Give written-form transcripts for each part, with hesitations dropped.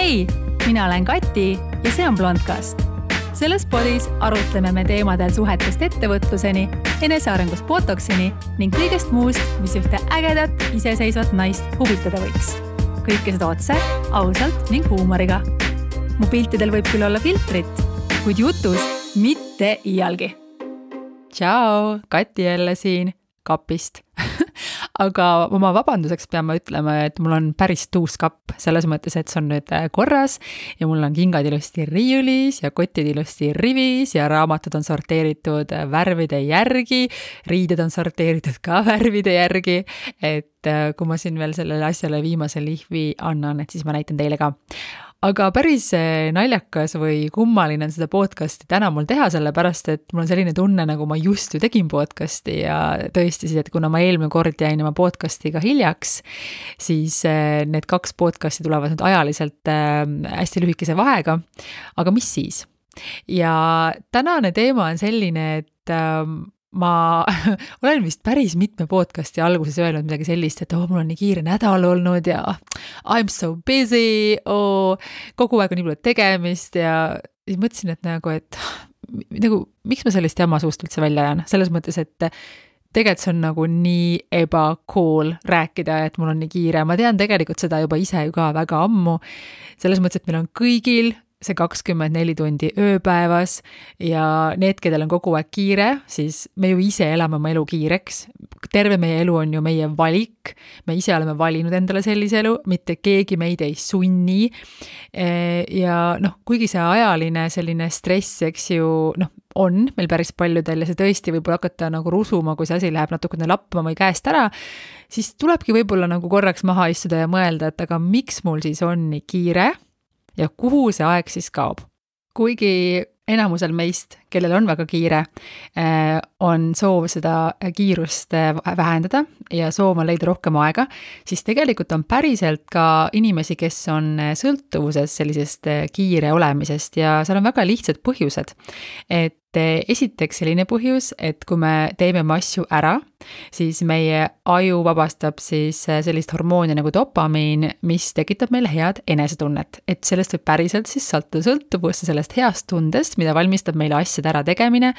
Hei, mina olen Kati ja see on Blondcast. Selles podis arutleme me teemadel suhetest ettevõtluseni, enesearengust botoksini ning kõigest muust, mis ühte ägedat, iseseisvat naist huvitada võiks. Kõike seda otse, ausalt ning huumoriga. Mu piltidel võib küll olla filtrit, kuid jutus mitte iialgi. Tšau, Kati jälle siin kapist. Aga oma vabanduseks peame ütlema, et mul on päris tuus kapp, selles mõttes, et see on nüüd korras ja mul on kingad ilusti riiulis ja kotid ilusti rivis ja raamatud on sorteeritud värvide järgi, riided on sorteeritud ka värvide järgi, et kui ma siin veel sellele asjale viimase lihvi annan, et siis ma näitan teile ka. Aga päris naljakas või kummaline on seda podcasti täna mul teha, sellepärast, et mul on selline tunne, nagu ma just ju tegin podcasti ja tõesti siis, et kuna ma eelmine kord jäin oma podcastiga hiljaks, siis need 2 podcasti tulevad nüüd ajaliselt hästi lühikese vahega. Aga mis siis? Ja tänane teema on selline, et ma olen vist päris mitme podcasti alguses öelnud midagi sellist, et mul on nii kiire nädal olnud ja I'm so busy, kogu aeg on nii palju tegemist ja siis mõtlesin, et miks ma sellist jama suust üldse välja ajan? Selles mõttes, et tegelikult see on nagu nii ebacool rääkida, et mul on nii kiire. Ma tean tegelikult seda juba ise ju ka väga ammu. Selles mõttes, et meil on kõigil see 24 tundi ööpäevas ja need, kedel on kogu aeg kiire, siis me ju ise elame oma elu kiireks. Terve meie elu on ju meie valik. Me ise oleme valinud endale sellise elu, mitte keegi meid ei sunni. Ja kuigi see ajaline selline stress, eks ju, on meil päris paljudel ja see tõesti võib hakata nagu rusuma, kui see asi läheb natukene lappama või käest ära, siis tulebki võib-olla nagu korraks maha istuda ja mõelda, et aga miks mul siis on nii kiire ja kuhu see aeg siis kaob. Kuigi enamusel meist, kellel on väga kiire, on soov seda kiirust vähendada ja soov on leida rohkem aega, siis tegelikult on päriselt ka inimesi, kes on sõltuvuses sellisest kiire olemisest ja seal on väga lihtsad põhjused. Et esiteks selline põhjus, et kui me teeme oma asju ära, siis meie aju vabastab siis sellist hormooni nagu dopamiin, mis tekitab meile head enesetunnet. Et sellest võib päriselt siis sõltuvusse sellest heast tundest, mida valmistab meile asjade ära tegemine,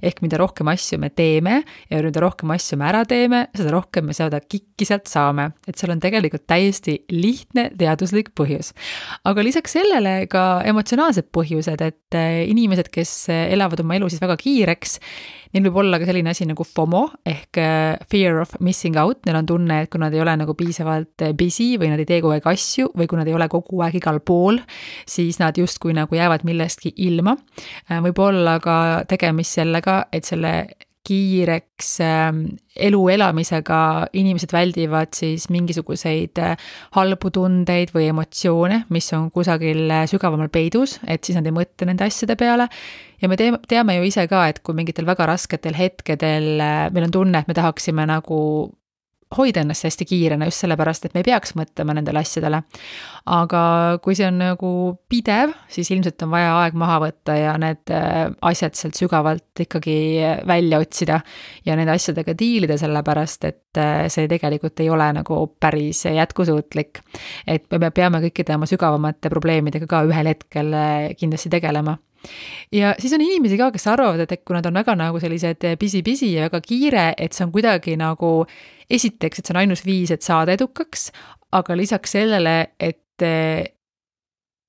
ehk mida rohkem asju me teeme ja mida rohkem asju me ära teeme, seda rohkem me seda kikki sealt saame. Et seal on tegelikult täiesti lihtne teaduslik põhjus. Aga lisaks sellele ka emotsionaalsed põhjused, et inimesed, kes elavad oma elu siis väga kiireks, neil võib olla ka selline asi nagu FOMO ehk fear of missing out, neil on tunne, et kui nad ei ole nagu piisavalt busy või nad ei tee kogu aeg asju või kui nad ei ole kogu aeg igal pool, siis nad justkui nagu jäävad millestki ilma. Võib olla ka tegemist sellega, et selle kiireks elu elamisega inimesed väldivad siis mingisuguseid halbu tundeid või emotsioone, mis on kusagil sügavamal peidus, et siis nad ei mõtle nende asjade peale. Ja me teame ju ise ka, et kui mingitel väga rasketel hetkedel meil on tunne, et me tahaksime nagu hoida ennast hästi kiirena just sellepärast, et me ei peaks mõtlema nendele asjadele. Aga kui see on nagu pidev, siis ilmselt on vaja aeg maha võtta ja need asjad sealt sügavalt ikkagi välja otsida ja nende asjadega diilida sellepärast, et see tegelikult ei ole nagu päris jätkusuutlik. Et me peame kõikide oma sügavamate probleemidega ka ühel hetkel kindlasti tegelema. Ja siis on inimesi ka, kes arvavad, et kui nad on väga nagu sellised busy ja väga kiire, et see on kuidagi nagu esiteks, et see on ainus viis, et saada edukaks, aga lisaks sellele, et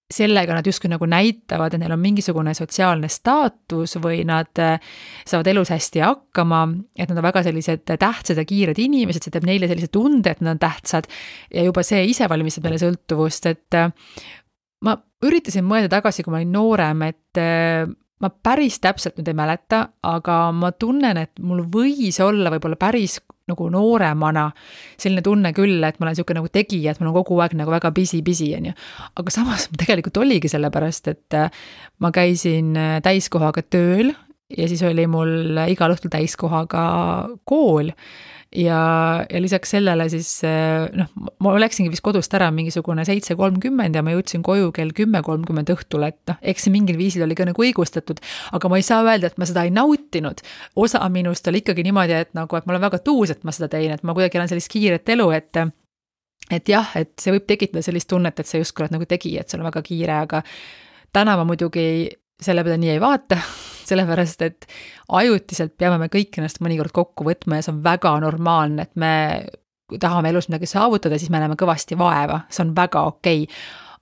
sellega nad justkui nagu näitavad, et neil on mingisugune sotsiaalne staatus või nad saavad elus hästi hakkama, et nad on väga sellised tähtsad ja kiired inimesed, see teeb neile sellise tunde, et nad on tähtsad ja juba see ise valmistab meile sõltuvust, et ma üritasin mõelda tagasi, kui ma olin noorem, et ma päris täpselt nüüd ei mäleta, aga ma tunnen, et mul võis olla võib-olla päris nagu nooremana selline tunne küll, et ma olen selline nagu tegija, et mul on kogu aeg nagu väga busy, on ju. Aga samas tegelikult oligi sellepärast, et ma käisin täiskohaga tööl ja siis oli mul igal õhtul täiskohaga kool. Ja lisaks sellele siis, ma läksingi vist kodust ära mingisugune 7:30 ja ma jõudsin koju kell 10:30 õhtul, et eks see mingil viisil oli ka nagu õigustatud, aga ma ei saa öelda, et ma seda ei nautinud. Osa minust oli ikkagi niimoodi, et ma olen väga tuus, et ma seda tein, et ma kuidagi olen sellist kiiret elu, et et jah, et see võib tekitada sellist tunnet, et sa justkui oled nagu tegija, et sul on väga kiire, aga täna ma muidugi selle peale nii ei vaata, sellepärast, et ajutiselt peame me kõik ennast mõnikord kokku võtma ja see on väga normaalne, et me tahame elus midagi saavutada, siis me näeme kõvasti vaeva, see on väga okei.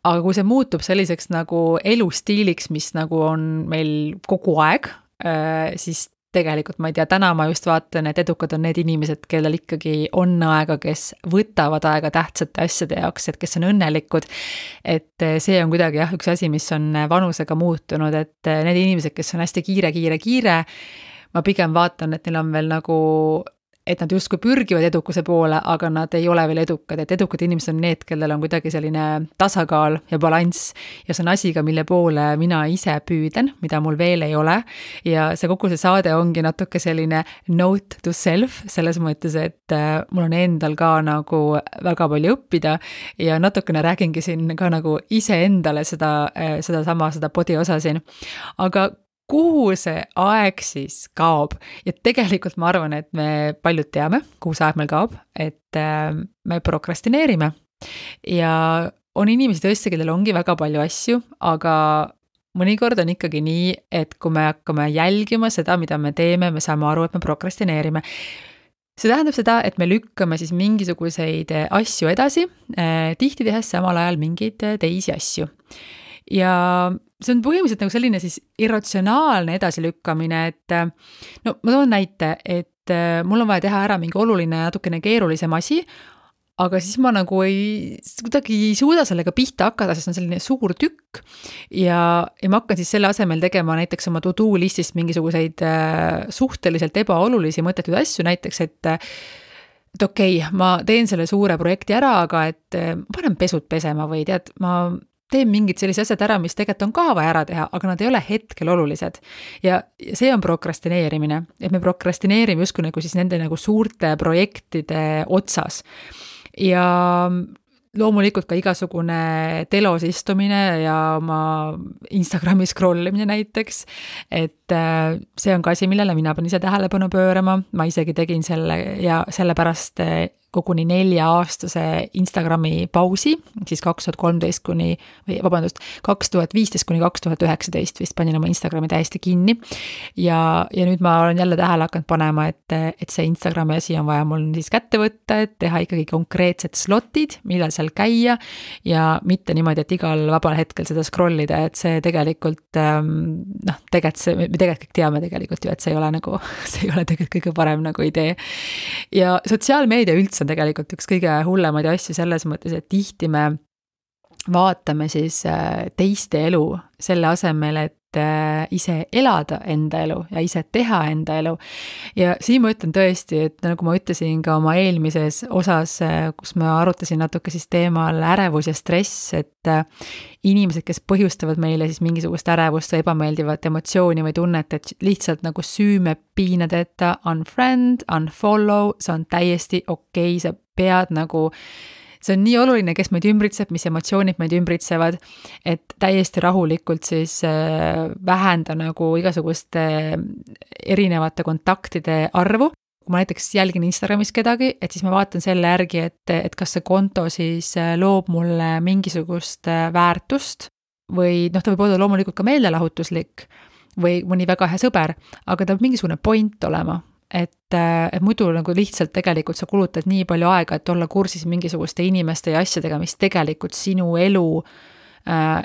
Aga kui see muutub selliseks nagu elustiiliks, mis nagu on meil kogu aeg, siis tegelikult ma ei tea, täna ma just vaatan, et edukad on need inimesed, kellel ikkagi on aega, kes võtavad aega tähtsate asjade jaoks, et kes on õnnelikud. Et see on kuidagi jah, üks asi, mis on vanusega muutunud, et need inimesed, kes on hästi kiire, ma pigem vaatan, et neil on veel nagu, et nad justkui pürgivad edukuse poole, aga nad ei ole veel edukad, et edukad inimesed on need, kellel on kuidagi selline tasakaal ja balanss ja see on asi ka, mille poole mina ise püüden, mida mul veel ei ole ja see kogu see saade ongi natuke selline note to self, selles mõttes, et mul on endal ka nagu väga palju õppida ja natukene räägingi siin ka nagu iseendale seda podi osa siin, aga kuhu see aeg siis kaob ja tegelikult ma arvan, et me paljud teame, kuhu see aeg meil kaob, et me prokrastineerime ja on inimesi tõesti, kellel ongi väga palju asju, aga mõnikord on ikkagi nii, et kui me hakkame jälgima seda, mida me teeme, me saame aru, et me prokrastineerime. See tähendab seda, et me lükkame siis mingisuguseid asju edasi, tihti tehes samal ajal mingeid teisi asju. Ja see on põhimõtteliselt nagu selline siis irratsionaalne edasilükkamine, et no ma toon näite, et mul on vaja teha ära mingi oluline natukene keerulisem asi, aga siis ma nagu kuidagi ei suuda sellega pihta hakata, sest on selline suur tükk ja ma hakkan siis selle asemel tegema näiteks oma to-do listist mingisuguseid suhteliselt ebaolulisi mõttetud asju, näiteks, et okei, ma teen selle suure projekti ära, aga et ma panen pesud pesema või tead, ma teen mingid sellised asjad ära, mis tegelikult on ka vaja ära teha, aga nad ei ole hetkel olulised. Ja see on prokrastineerimine, et me prokrastineerime justkui nagu siis nende nagu suurte projektide otsas. Ja loomulikult ka igasugune telos istumine ja oma Instagrami scrollimine näiteks, et see on ka asi, millele mina pean ise tähelepanu pöörama, ma isegi tegin selle ja sellepärast koguni 4-aastase Instagrami pausi, siis 2015 kuni 2019 vist panin oma Instagrami täiesti kinni ja nüüd ma olen jälle tähele hakanud panema, et see Instagrami asi on vaja mul siis kätte võtta, et teha ikkagi konkreetsed slotid, millal seal käia ja mitte niimoodi, et igal vabal hetkel seda scrollida, et see tegelikult me tegelikult kõik teame tegelikult ju, et see ei ole nagu, see ei ole tegelikult kõige parem nagu idee. Ja sotsiaalmeedia üldse on tegelikult üks kõige hullemaid asju selles mõttes, et tihti me vaatame siis teiste elu selle asemel, et ise elada enda elu ja ise teha enda elu. Ja siin ma ütlen tõesti, et nagu ma ütlesin ka oma eelmises osas, kus ma arutasin natuke siis teemal ärevus ja stress, et inimesed, kes põhjustavad meile siis mingisugust ärevust või ebameeldivat emotsiooni või tunnet, et lihtsalt nagu süüme piinadeta unfriend, unfollow, see on täiesti okei, sa pead nagu see on nii oluline, kes meid ümbritseb, mis emotsioonid meid ümbritsevad, et täiesti rahulikult siis vähenda nagu igasuguste erinevate kontaktide arvu. Kui ma näiteks jälgin Instagramis kedagi, et siis ma vaatan selle järgi, et kas see konto siis loob mulle mingisugust väärtust või ta võib olla loomulikult ka meelelahutuslik või mõni väga hea sõber, aga ta peab mingisugune point olema. Et muidu nagu lihtsalt tegelikult sa kulutad nii palju aega, et olla kursis mingisuguste inimeste ja asjadega, mis tegelikult sinu elu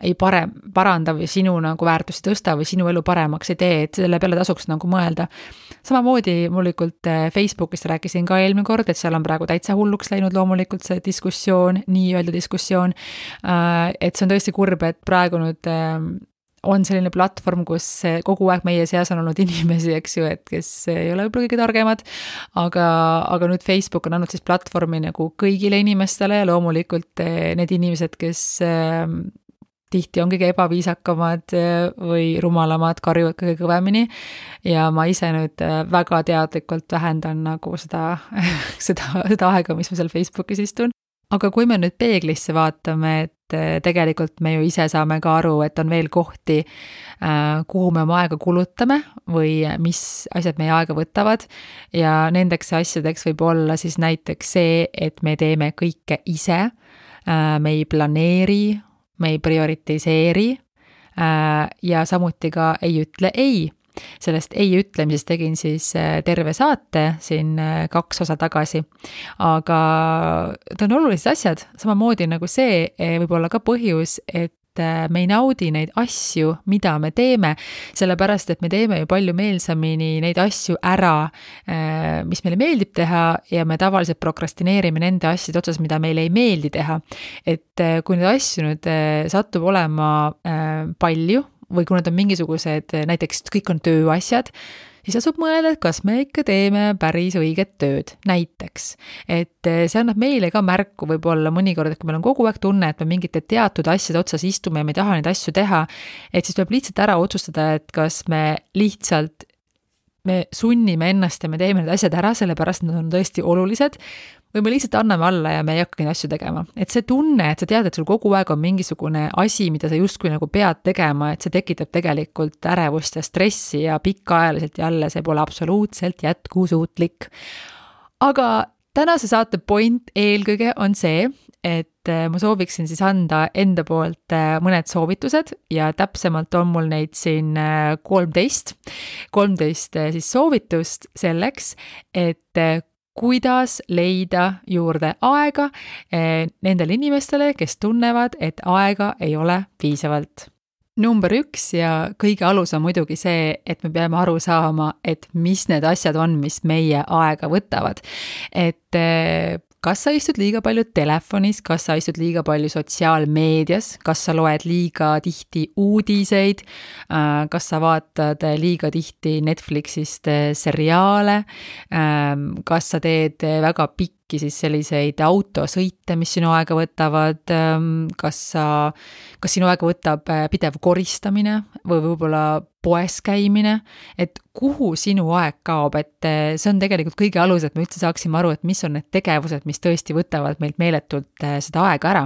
ei paranda või sinu nagu väärtusi tõsta või sinu elu paremaks ei tee, et selle peale tasuks nagu mõelda. Samamoodi loomulikult Facebookist rääkisin ka eelmine kord, et seal on praegu täitsa hulluks läinud loomulikult see diskussioon, nii-öelda diskussioon, et see on tõesti kurb, et praegu nüüd on selline platvorm, kus kogu aeg meie seas on olnud inimesi, eks ju, et kes ei ole võib-olla kõige targemad, aga nüüd Facebook on andnud siis platvormi nagu kõigile inimestele ja loomulikult need inimesed, kes tihti on kõige ebaviisakamad või rumalamad, karjuvad kõige kõvemini ja ma ise nüüd väga teadlikult vähendan nagu seda aega, mis ma seal Facebookis istun. Aga kui me nüüd peeglisse vaatame, tegelikult me ju ise saame ka aru, et on veel kohti, kuhu me oma aega kulutame või mis asjad meie aega võtavad ja nendeks asjadeks võib olla siis näiteks see, et me teeme kõike ise, me ei planeeri, me ei prioritiseeri ja samuti ka ei ütle ei. Sellest ei ütlemisest tegin siis terve saate siin 2 osa tagasi, aga ta on olulised asjad, samamoodi nagu see võib olla ka põhjus, et me ei naudi neid asju, mida me teeme, sellepärast, et me teeme ju palju meelsamini neid asju ära, mis meile meeldib teha ja me tavaliselt prokrastineerime nende asjade otsas, mida meile ei meeldi teha. Et kui neid asju nüüd satub olema palju, või kui need on mingisugused, näiteks kõik on tööasjad, siis tasub mõelda, et kas me ikka teeme päris õiget tööd, näiteks. Et see annab meile ka märku võib-olla mõnikord, et kui meil on kogu aeg tunne, et me mingite teatud asjade otsas istume ja me ei taha neid asju teha, et siis tuleb lihtsalt ära otsustada, et kas me sunnime ennast ja me teeme need asjad ära, sellepärast nad on tõesti olulised, või me lihtsalt anname alla ja me ei hakka neid asju tegema. Et see tunne, et sa tead, et sul kogu aeg on mingisugune asi, mida sa justkui nagu pead tegema, et see tekitab tegelikult ärevust ja stressi ja pikaajaliselt jälle see pole absoluutselt jätkusuutlik. Aga tänase saate point eelkõige on see, et ma sooviksin siis anda enda poolt mõned soovitused ja täpsemalt on mul neid siin 13 siis soovitust selleks, et kuidas leida juurde aega nendele inimestele, kes tunnevad, et aega ei ole piisavalt. Number 1 ja kõige alus on muidugi see, et me peame aru saama, et mis need asjad on, mis meie aega võtavad. Et kas sa istud liiga palju telefonis, kas sa istud liiga palju sotsiaalmeedias, kas sa loed liiga tihti uudiseid, kas sa vaatad liiga tihti Netflixist seriaale, kas sa teed väga pikki siis selliseid autosõite, mis sinu aega võtavad, kas sinu aega võtab pidev koristamine või võib-olla poes käimine, et kuhu sinu aeg kaob, et see on tegelikult kõige alus, et me üldse saaksime aru, et mis on need tegevused, mis tõesti võtavad meilt meeletult seda aega ära.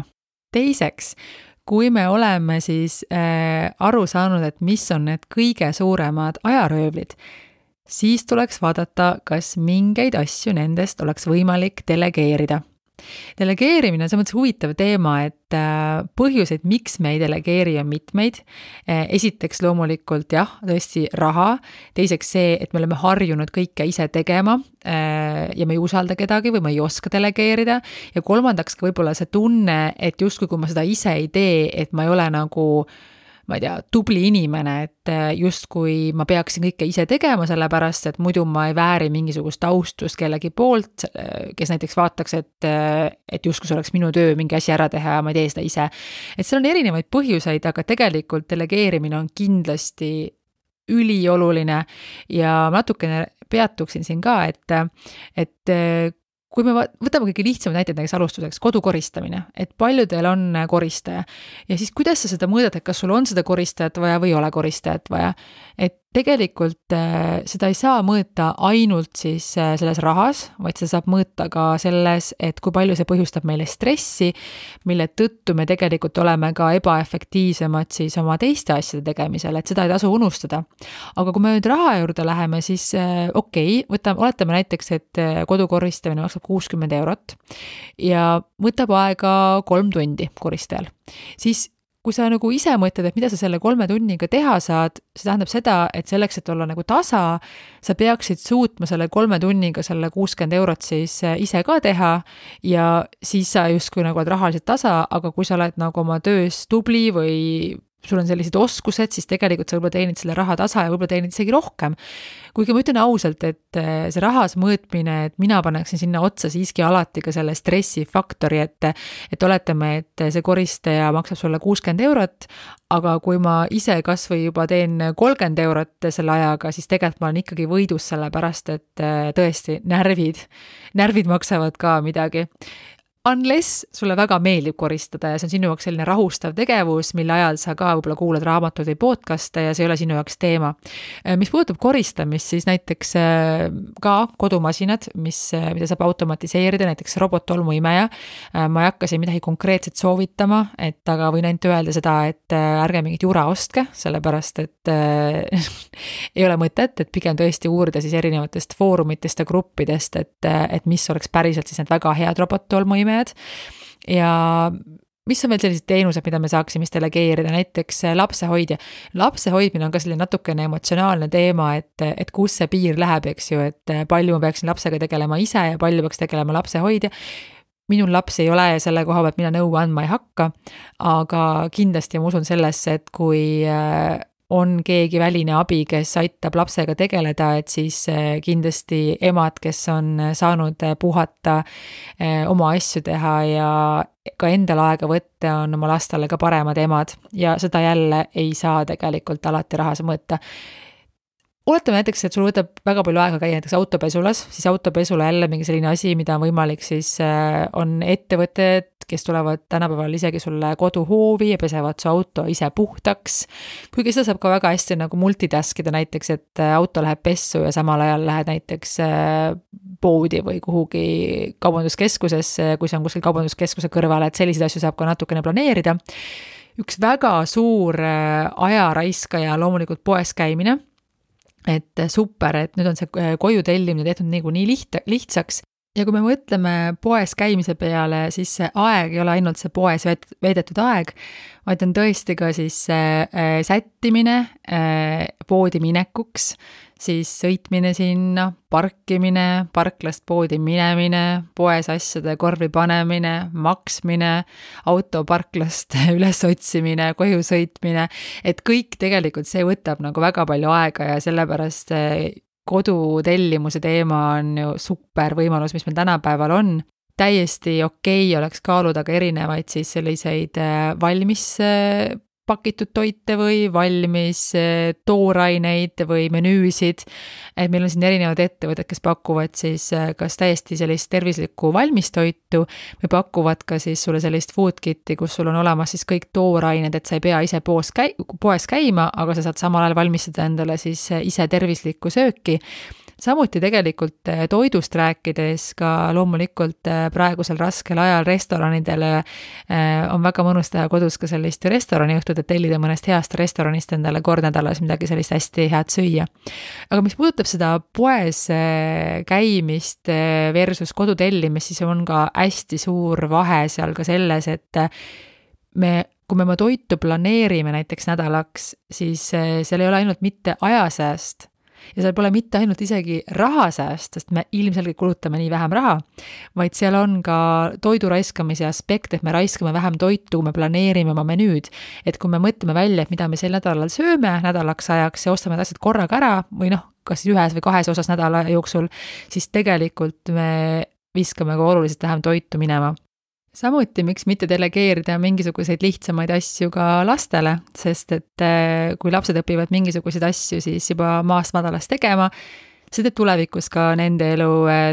Teiseks, kui me oleme siis aru saanud, et mis on need kõige suuremad ajaröövlid, siis tuleks vaadata, kas mingeid asju nendest oleks võimalik delegeerida. Delegeerimine on mõttes huvitav teema, et põhjuseid, miks me ei delegeeri on mitmeid. Esiteks loomulikult jah, tõesti raha. Teiseks see, et me oleme harjunud kõike ise tegema ja me ei usalda kedagi või me ei oska delegeerida. Ja kolmandaks ka võib-olla see tunne, et justkui kui ma seda ise ei tee, et ma ei ole nagu ma ei tea, tubli inimene, et justkui ma peaksin kõike ise tegema, sellepärast, et muidu ma ei vääri mingisugust austust kellegi poolt, kes näiteks vaataks, et justkui see oleks minu töö mingi asi ära teha ja ma ei tee seda ise. Et seal on erinevaid põhjuseid, aga tegelikult delegeerimine on kindlasti ülioluline ja natukene peatuksin siin ka, et kui me võtame kõige lihtsamad näited näiteks alustuseks, kodukoristamine, et paljudel on koristaja ja siis kuidas sa seda mõõdad, et kas sul on seda koristajat vaja või ei ole koristajat vaja, et tegelikult seda ei saa mõõta ainult siis selles rahas, vaid seda saab mõõta ka selles, et kui palju see põhjustab meile stressi, mille tõttu me tegelikult oleme ka ebaefektiivsemad siis oma teiste asjade tegemisel, et seda ei tasu unustada. Aga kui me nüüd raha juurde läheme, siis oletame näiteks, et kodukoristamine maksab 60 eurot ja võtab aega 3 tundi koristajal, siis kui sa nagu ise mõtled, et mida sa selle 3 tunniga teha saad, see tähendab seda, et selleks, et olla nagu tasa, sa peaksid suutma selle 3 tunniga selle 60 eurot siis ise ka teha ja siis sa justkui nagu oled rahaliselt tasa, aga kui sa oled nagu oma töös tubli või sul on sellised oskused, siis tegelikult sa võib-olla teenid selle raha tasa ja võib-olla teenid isegi rohkem. Kuigi ma ütlen ausalt, et see rahas mõõtmine, et mina paneksin sinna otsa siiski alati ka selle stressifaktori, et oletame, et see koristaja maksab sulle 60 eurot, aga kui ma ise kas või juba teen 30 eurot selle ajaga, siis tegelikult ma olen ikkagi võidus selle pärast, et tõesti närvid maksavad ka midagi. Unless sulle väga meeldib koristada ja see on sinu jaoks selline rahustav tegevus, mille ajal sa ka võib-olla kuulad raamatuid või podcast'e ja see ei ole sinu jaoks teema. Mis puudutab koristamist, siis näiteks ka kodumasinad, mida saab automatiseerida, näiteks robottolmuimeja. Ma ei hakka siin midagi konkreetset soovitama, aga võin ainult öelda seda, et ärge mingit jura ostke, sellepärast et ei ole mõtet, et pigem tõesti uurida siis erinevatest foorumitest ja gruppidest, et mis oleks päriselt siis need väga head robottolmuimejad. Ja mis on veel sellised teenused, mida me saaksime delegeerida, näiteks lapsehoidja. Lapse hoidmine on ka selline natukene emotsionaalne teema, et kus see piir läheb, eks ju, et palju ma peaksin lapsega tegelema ise ja palju peaks tegelema lapsehoidja. Minul laps ei ole ja selle koha pealt mina nõu andma ei hakka, aga kindlasti ma usun sellesse, et kui on keegi väline abi, kes aitab lapsega tegeleda, et siis kindlasti emad, kes on saanud puhata, oma asju teha ja ka endal aega võtta, on oma lastele ka paremad emad ja seda jälle ei saa tegelikult alati rahas mõõta. Oletame näiteks, et sul võtab väga palju aega käia näiteks autopesulas, siis autopesula jälle mingi selline asi, mida on võimalik siis, on ettevõtted, kes tulevad tänapäeval isegi sulle koduhoovi ja pesevad su auto ise puhtaks. Kuigi seda saab ka väga hästi nagu multitaskida näiteks, et auto läheb pessu ja samal ajal lähed näiteks poodi või kuhugi kaubanduskeskusesse, kui see on kuskil kaubanduskeskuse kõrval, et selliseid asju saab ka natukene planeerida. Üks väga suur ajaraiskaja loomulikult poes käimine, et super, et nüüd on see koju tellimine tehtud nii lihtsaks ja kui me mõtleme poes käimise peale, siis see aeg ei ole ainult see poes veedetud aeg, vaid on tõesti ka siis sättimine poodi minekuks, siis sõitmine sinna, parkimine, parklast poodi minemine, poes asjade korvi panemine, maksmine, auto parklast üles otsimine, koju sõitmine, et kõik tegelikult see võtab nagu väga palju aega ja sellepärast kodutellimuse teema on ju super võimalus, mis meil tänapäeval on. Täiesti okei oleks kaaluda ka erinevaid siis selliseid valmis pakitud toite või valmis tooraineid või menüüsid, et meil on siin erinevad ettevõtted, kes pakuvad siis kas täiesti sellist tervislikku valmistoitu või pakuvad ka siis sulle sellist food kit'i, kus sul on olemas siis kõik toorained, et sa ei pea ise poes käima, aga sa saad samal ajal valmistada endale siis ise tervislikku sööki. Samuti tegelikult toidust rääkides ka loomulikult praegusel raskel ajal restoranidele on väga mõnus teha kodus ka sellist restoraniõhtut, et tellida mõnest heast restoranist endale kord nädalas midagi sellist hästi head süüa. Aga mis puudutab seda poes käimist versus kodutellimist, siis on ka hästi suur vahe seal ka selles, et kui me oma toitu planeerime näiteks nädalaks, siis seal ei ole ainult mitte ajasääst, ja seal pole mitte ainult isegi rahasääst, sest me ilmselgelt kulutame nii vähem raha, vaid seal on ka toidu raiskamise aspekt, et me raiskame vähem toitu, me planeerime oma menüüd, et kui me mõtleme välja, et mida me sel nädalal sööme nädalaks ajaks ja ostame asjad korraga ära või kas siis ühes või kahes osas nädala jooksul, siis tegelikult me viskame ka oluliselt vähem toitu minema. Samuti, miks mitte delegeerida mingisuguseid lihtsamaid asju ka lastele, sest et kui lapsed õpivad mingisuguseid asju siis juba maast madalast tegema, see teeb tulevikus ka nende elu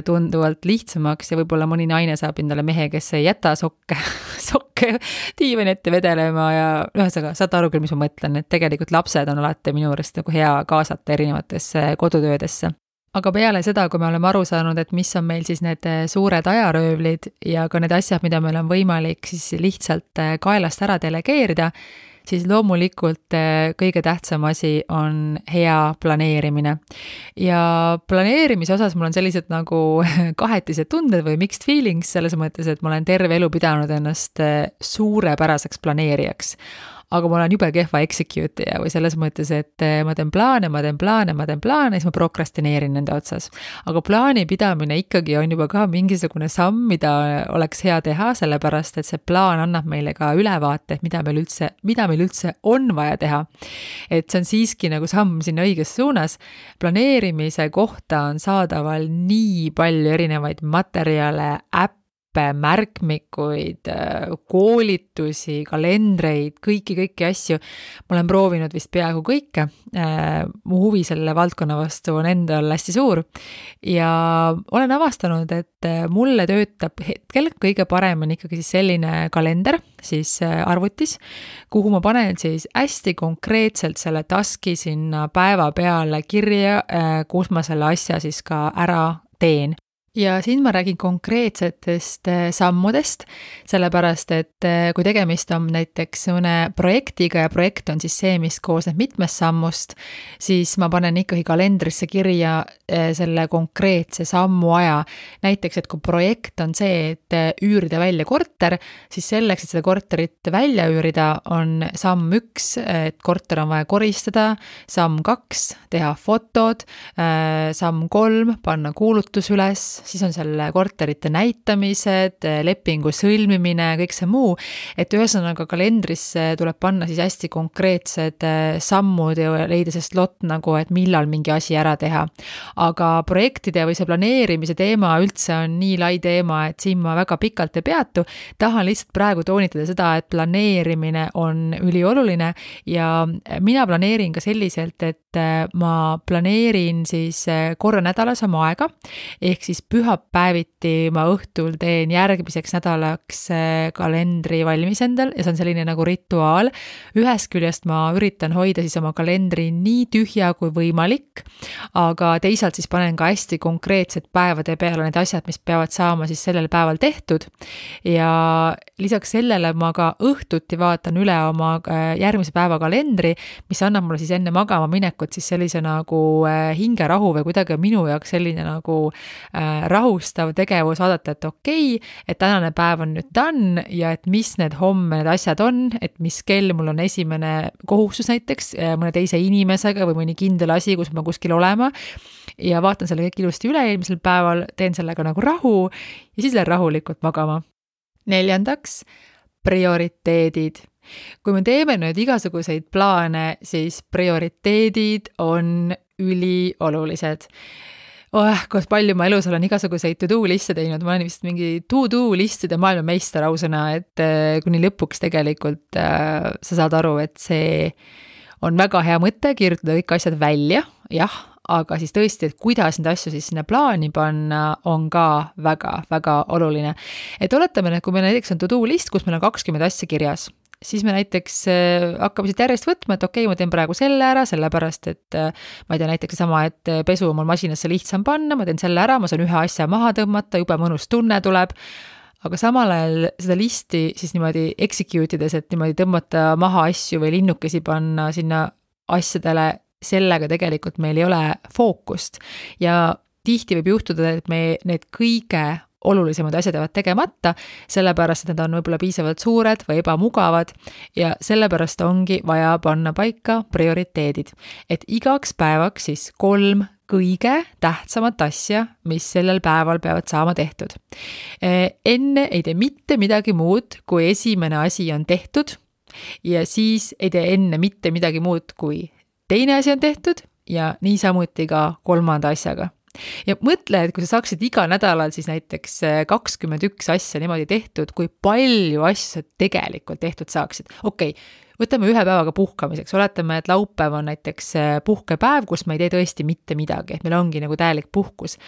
tunduvalt lihtsamaks ja võib-olla mõni naine saab endale mehe, kes ei jäta sokke diivani ette vedelema ja ühesõnaga, saate aru küll, mis ma mõtlen, et tegelikult lapsed on alati minu juurest nagu hea kaasata erinevatesse kodutöödesse. Aga peale seda, kui me oleme aru saanud, et mis on meil siis need suured ajaröövlid ja ka need asjad, mida meil on võimalik siis lihtsalt kaelast ära delegeerida, siis loomulikult kõige tähtsam asi on hea planeerimine. Ja planeerimise osas mul on sellised nagu kahetised tunded või mixed feelings selles mõttes, et ma olen terve elu pidanud ennast suurepäraseks planeerijaks. Aga ma olen jube kehva execute'ija või selles mõttes, et ma teen plaane, siis ma prokrastineerin nende otsas. Aga plaani pidamine ikkagi on juba ka mingisugune samm, mida oleks hea teha, sellepärast, et see plaan annab meile ka ülevaate, et mida meil üldse on vaja teha. Et see on siiski nagu samm sinna õiges suunas. Planeerimise kohta on saadaval nii palju erinevaid materjale, nippe, märkmikuid, koolitusi, kalendreid, kõiki asju. Ma olen proovinud vist peaaegu kõike. Mu huvi selle valdkonna vastu on endal hästi suur ja olen avastanud, et mulle töötab hetkel kõige parem on ikkagi siis selline kalender siis arvutis, kuhu ma panen siis hästi konkreetselt selle taski sinna päeva peale kirja, kus ma selle asja siis ka ära teen. Ja siin ma räägin konkreetsetest sammudest, sellepärast, et kui tegemist on näiteks mõne projektiga ja projekt on siis see, mis koosneb mitmest sammust, siis ma panen ikkagi kalendrisse kirja selle konkreetse sammu aja. Näiteks, et kui projekt on see, et üürida välja korter, siis selleks, et seda korterit välja üürida, on samm 1, et korter on vaja koristada, samm 2, teha fotod, samm 3, panna kuulutus üles, siis on selle korterite näitamised, lepingu sõlmimine, kõik see muu, et ühesõnaga kalendrisse tuleb panna siis hästi konkreetsed sammud ja leida see slot nagu, et millal mingi asi ära teha. Aga projektide või see planeerimise teema üldse on nii lai teema, et siin ma väga pikalt ei peatu. Tahan lihtsalt praegu toonitada seda, et planeerimine on ülioluline ja mina planeerin ka selliselt, et ma planeerin siis korra nädalas oma aega, ehk siis pühapäeviti ma õhtul teen järgmiseks nädalaks kalendri valmis endal ja see on selline nagu rituaal. Ühest küljest ma üritan hoida siis oma kalendri nii tühja kui võimalik, aga teisalt siis panen ka hästi konkreetsed päevade peale need asjad, mis peavad saama siis sellel päeval tehtud. Ja lisaks sellele ma ka õhtuti vaatan üle oma järgmise päeva kalendri, mis annab mulle siis enne magama minekut siis sellise nagu hingerahu või kuidagi minu jaoks selline nagu rahustav tegevus vaadata, et okei, et tänane päev on nüüd done ja et mis need homme need asjad on, et mis kell mul on esimene kohustus näiteks mõne teise inimesega või mõni kindel asi, kus ma kuskil olema ja vaatan selle kõik ilusti üle eelmisel päeval, teen sellega nagu rahu ja siis lähen rahulikult magama. 4. prioriteedid. Kui me teeme nüüd igasuguseid plaane, siis prioriteedid on üliolulised. Kus palju ma elus olen igasuguseid to-do liste teinud, ma olen vist mingi to-do listide maailmameister ausõna, et kuni lõpuks tegelikult sa saad aru, et see on väga hea mõte kirjutada kõik asjad välja, jah, aga siis tõesti, et kuidas neid asju siis sinna plaani panna, on ka väga oluline. Et oletame, kui meil näiteks on to-do list, kus meil on 20 asja kirjas, siis me näiteks hakkame siit järjest võtma, et okei, ma teen praegu selle ära, sellepärast, et ma ei tea, näiteks sama, et pesu on mul masinasse lihtsam panna, ma teen selle ära, ma saan ühe asja maha tõmmata, jube mõnus tunne tuleb, aga samal ajal seda listi siis niimoodi execute ides, et niimoodi tõmmata maha asju või linnukesi panna sinna asjadele, sellega tegelikult meil ei ole fookust ja tihti võib juhtuda, et me need kõige olulisemad asjad jäävad tegemata, sellepärast, et need on võib-olla piisavalt suured või ebamugavad ja sellepärast ongi vaja panna paika prioriteedid. Et igaks päevaks siis 3 kõige tähtsamat asja, mis sellel päeval peavad saama tehtud. Enne ei tee mitte midagi muud, kui esimene asi on tehtud ja siis ei tee enne mitte midagi muud, kui teine asi on tehtud ja niisamuti ka 3. asjaga. Ja mõtle, et kui sa saaksid iga nädalal siis näiteks 21 asja niimoodi tehtud, kui palju asju sa tegelikult tehtud saaksid. Okei, võtame ühe päevaga puhkamiseks, oletame, et laupäev on näiteks puhkepäev, kus ma ei tee tõesti mitte midagi, et meil ongi nagu täielik puhkus.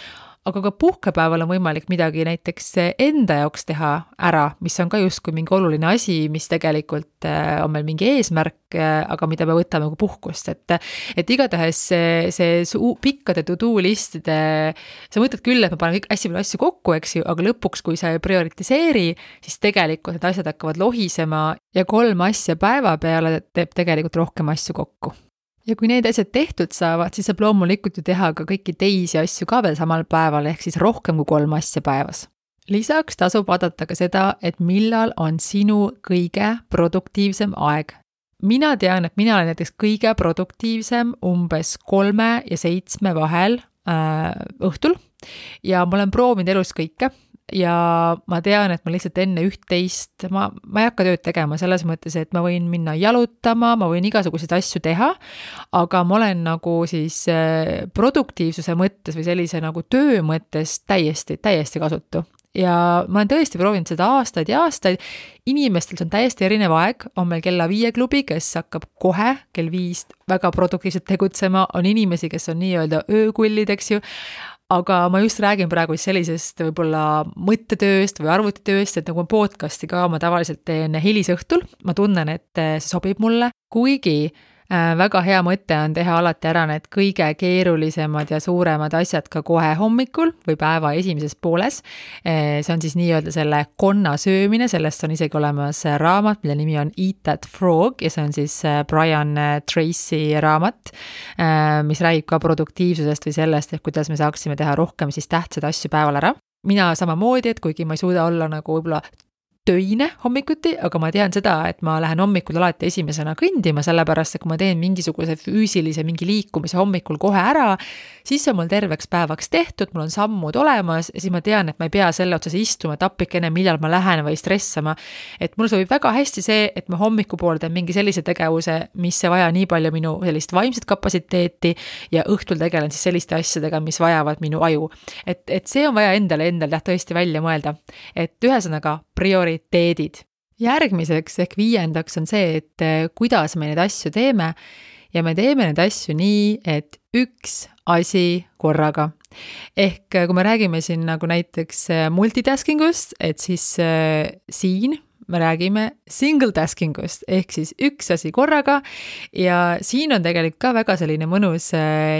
Aga ka puhkepäeval on võimalik midagi näiteks enda jaoks teha ära, mis on ka justkui mingi oluline asi, mis tegelikult on meil mingi eesmärk, aga mida me võtame kui puhkust. Et igatahes see pikkade to-do listide, sa mõtled küll, et ma panen kõik hästi palju asju kokku, eks ju, aga lõpuks, kui sa ei prioritiseeri, siis tegelikult need asjad hakkavad lohisema ja 3 asja päeva peale teeb tegelikult rohkem asju kokku. Ja kui need asjad tehtud saavad, siis saab loomulikult ju teha ka kõiki teisi asju ka veel samal päeval, ehk siis rohkem kui 3 asja päevas. Lisaks tasub vaadata ka seda, et millal on sinu kõige produktiivsem aeg. Mina tean, et mina olen näiteks kõige produktiivsem umbes 3 ja 7 vahel õhtul ja ma olen proovinud elus kõike. Ja ma tean, et ma lihtsalt enne 11, ma ei hakka tööd tegema selles mõttes, et ma võin minna jalutama, ma võin igasuguseid asju teha, aga ma olen nagu siis produktiivsuse mõttes või sellise nagu töö mõttes täiesti kasutu. ja ma olen tõesti proovinud seda aastaid ja aastaid. Inimestel see on täiesti erinev aeg, on meil kella 5 klubi, kes hakkab kohe kell 5 väga produktiivselt tegutsema, on inimesi, kes on nii-öelda öökullid, eks ju, aga ma just räägin praegu sellisest võib-olla mõttetööst või arvutitööst, et nagu podcasti ka ma tavaliselt teen hilisõhtul, ma tunnen, et see sobib mulle, kuigi väga hea mõte on teha alati ära need kõige keerulisemad ja suuremad asjad ka kohe hommikul või päeva esimeses pooles. See on siis nii-öelda selle konna söömine, sellest on isegi olemas raamat, mille nimi on Eat That Frog ja see on siis Brian Tracy raamat, mis räägib ka produktiivsusest või sellest, et kuidas me saaksime teha rohkem siis tähtsaid asju päeval ära. Mina samamoodi, et kuigi ma ei suuda olla nagu võib-olla töine hommikuti, aga ma tean seda, et ma lähen hommikul alati esimesena kõndima, sellepärast, et kui ma teen mingisuguse füüsilise mingi liikumise hommikul kohe ära, siis on mul terveks päevaks tehtud, mul on sammud olemas ja siis ma tean, et ma ei pea selle otsas istuma tapikene, millal ma lähen või stressama. Et mul sobib väga hästi see, et ma hommikupool teen mingi sellise tegevuse, mis ei vaja nii palju minu sellist vaimset kapatsiteeti ja õhtul tegelen siis selliste asjadega, mis vajavad minu aju. Et see on vaja endale tõesti välja mõelda. Et ühesõnaga prioriteedid. Järgmiseks ehk 5. on see, et kuidas me neid asju teeme ja me teeme neid asju nii, et üks asi korraga. Ehk kui me räägime siin nagu näiteks multitaskingust, et siis siin me räägime single taskingust, ehk siis üks asi korraga ja siin on tegelikult ka väga selline mõnus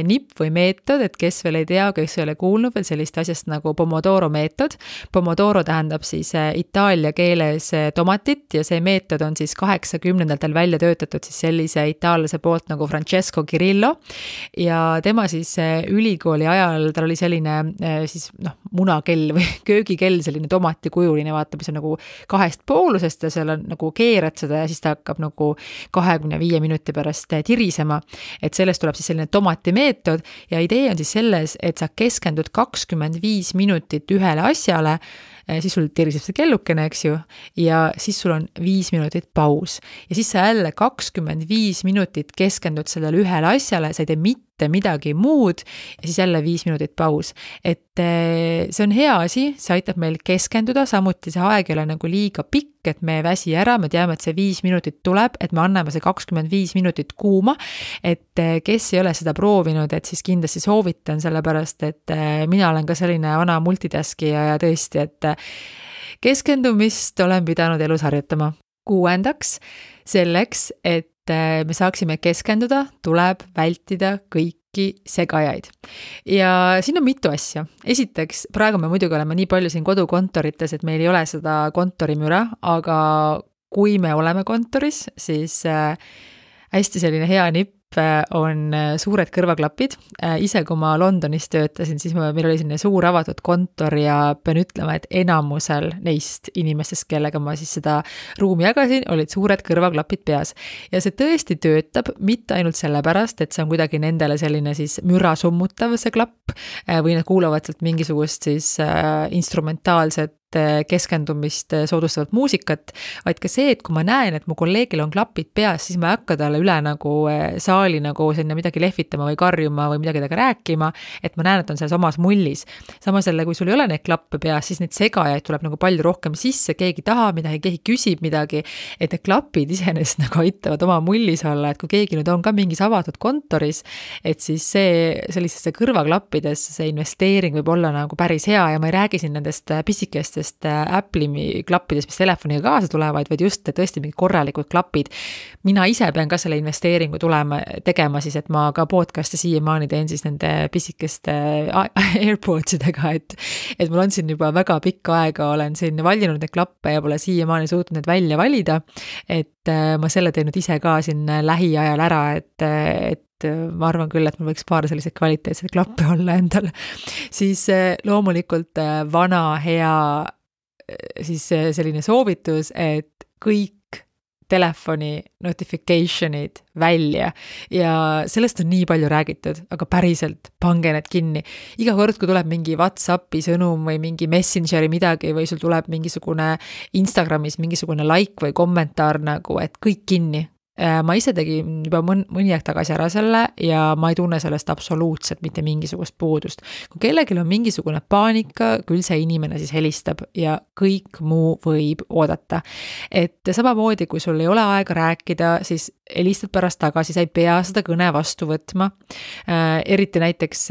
nipp või meetod, et kes veel ei tea, kes ei ole kuulnud veel sellist asjast nagu Pomodoro meetod. Pomodoro tähendab siis itaalia keeles tomatit ja see meetod on siis 80-ndatel välja töötatud siis sellise itaallase poolt nagu Francesco Cirillo ja tema siis ülikooli ajal, tal oli selline siis munakell või köögikell, selline tomatikujuline, vaatab, see on nagu 2 poolusest ja seal on nagu keerad seda ja siis ta hakkab nagu 25 minuti pärast tirisema. Et sellest tuleb siis selline tomatimeetod ja idee on siis selles, et sa keskendud 25 minutit ühele asjale, siis sul tiriseb see kellukene, eks ju, ja siis sul on 5 minutit paus. Ja siis sa jälle 25 minutit keskendud sellele ühele asjale, sa ei tee mitte midagi muud ja siis jälle 5 minutit paus. Et see on hea asi, see aitab meil keskenduda, samuti see aeg ei ole nagu liiga pikk, et me ei väsi ära, me teame, et see 5 minutit tuleb, et me anname see 25 minutit kuuma, et kes ei ole seda proovinud, et siis kindlasti soovitan, sellepärast, et mina olen ka selline vana multitaskija ja tõesti, et keskendumist olen pidanud elus harjutama. 6. selleks, et me saaksime keskenduda, tuleb vältida kõiki segajaid. Ja siin on mitu asja. Esiteks, praegu me muidugi oleme nii palju siin kodukontorites, et meil ei ole seda kontorimüra, aga kui me oleme kontoris, siis hästi selline hea nipp on suured kõrvaklapid. Ise, kui ma Londonis töötasin, siis meil oli selline suur avatud kontor ja pean ütlema, et enamusel neist inimestest, kellega ma siis seda ruumi jagasin, olid suured kõrvaklapid peas. Ja see tõesti töötab mitte ainult sellepärast, et see on kuidagi nendele selline siis müra summutav see klapp või nad kuulavad sealt mingisugust siis instrumentaalset keskendumist soodustavat muusikat, vaid ka see, et kui ma näen, et mu kolleegil on klapid peas, siis ma ei hakka talle üle nagu saali nagu sinna midagi lehvitama või karjuma või midagi temaga rääkima, et ma näen, et on selles omas mullis. Samas jälle, kui sul ei ole neid klappe peas, siis neid segajaid tuleb nagu palju rohkem sisse, keegi tahab midagi, keegi küsib midagi, et need klapid iseenesest nagu aitavad oma mullis olla, et kui keegi nüüd on ka mingis avatud kontoris, et siis sellisesse kõrvaklappides see investeering võib olla nagu päris hea ja ma ei räägi siin nendest pisikestest Apple'i klappidest, mis telefoniga kaasa tulevad, vaid just tõesti mingi korralikud klapid. Mina ise pean ka selle investeeringu tegema siis, et ma ka podcast'e siiamaani teen siis nende pisikeste AirPodsidega, et mul on siin juba väga pikka aega, olen siin valinud neid klappe ja pole siiamaani suutnud need välja valida, et ma selle teen nüüd ise ka siin lähiajal ära, et ma arvan küll, et mul võiks paar selliseid kvaliteetseid klappe olla endal. Siis loomulikult vana hea siis selline soovitus, et kõik telefoni notification'id välja ja sellest on nii palju räägitud, aga päriselt pange need kinni. Iga kord, kui tuleb mingi WhatsAppi sõnum või mingi Messengeri midagi või sul tuleb mingisugune Instagramis mingisugune like või kommentaar nagu, et kõik kinni. ma ise tegin juba mõni aeg tagasi ära selle ja ma ei tunne sellest absoluutselt mitte mingisugust puudust. Kui kellelgi on mingisugune paanika, küll see inimene siis helistab ja kõik muu võib oodata. Et samamoodi, kui sul ei ole aega rääkida, siis helistad pärast tagasi, sa ei pea seda kõne vastu võtma. Eriti näiteks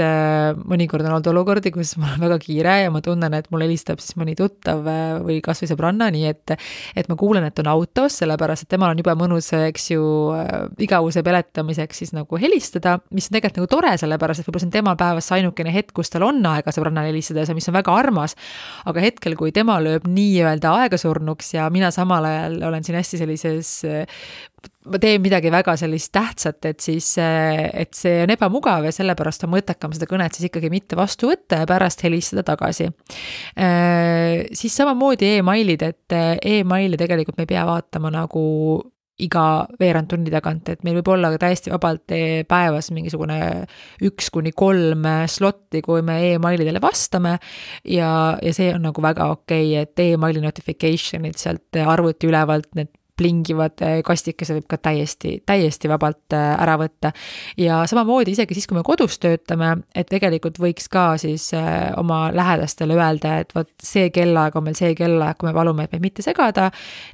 mõnikord on olnud olukordi, kus mul on väga kiire ja ma tunnen, et mul helistab siis mõni tuttav või kas või sõbranna, nii et ma kuulen, et on autos, sellepärast et temal on juba mõnus, eks ju, igavuse peletamiseks siis nagu helistada, mis on tegelikult nagu tore, sellepärast et võib-olla see on tema päevas ainukene hetk, kus tal on aega sõbrannale helistada ja see, mis on väga armas, aga hetkel, kui tema lööb nii-öelda aegasurnuks ja mina samal ajal olen siin hästi sellises, ma teen midagi väga sellist tähtsat, et siis, et see on ebamugav ja sellepärast on mõttekam seda kõnet siis ikkagi mitte vastu võtta ja pärast helistada tagasi. Siis samamoodi e-mailid, et e-maili tegelikult me ei pea vaatama nagu iga veerand tunni tagant, et meil võib olla täiesti vabalt päevas mingisugune 1-3 slotti, kui me e-mailidele vastame ja see on nagu väga okei, et e-maili notification'id sealt arvuti ülevalt, need plingivad kastikese võib ka täiesti vabalt ära võtta. Ja samamoodi isegi siis, kui me kodus töötame, et tegelikult võiks ka siis oma lähedastele öelda, et võt see kellaaeg on meil see kellaaeg, kui me palume, et meid mitte segada,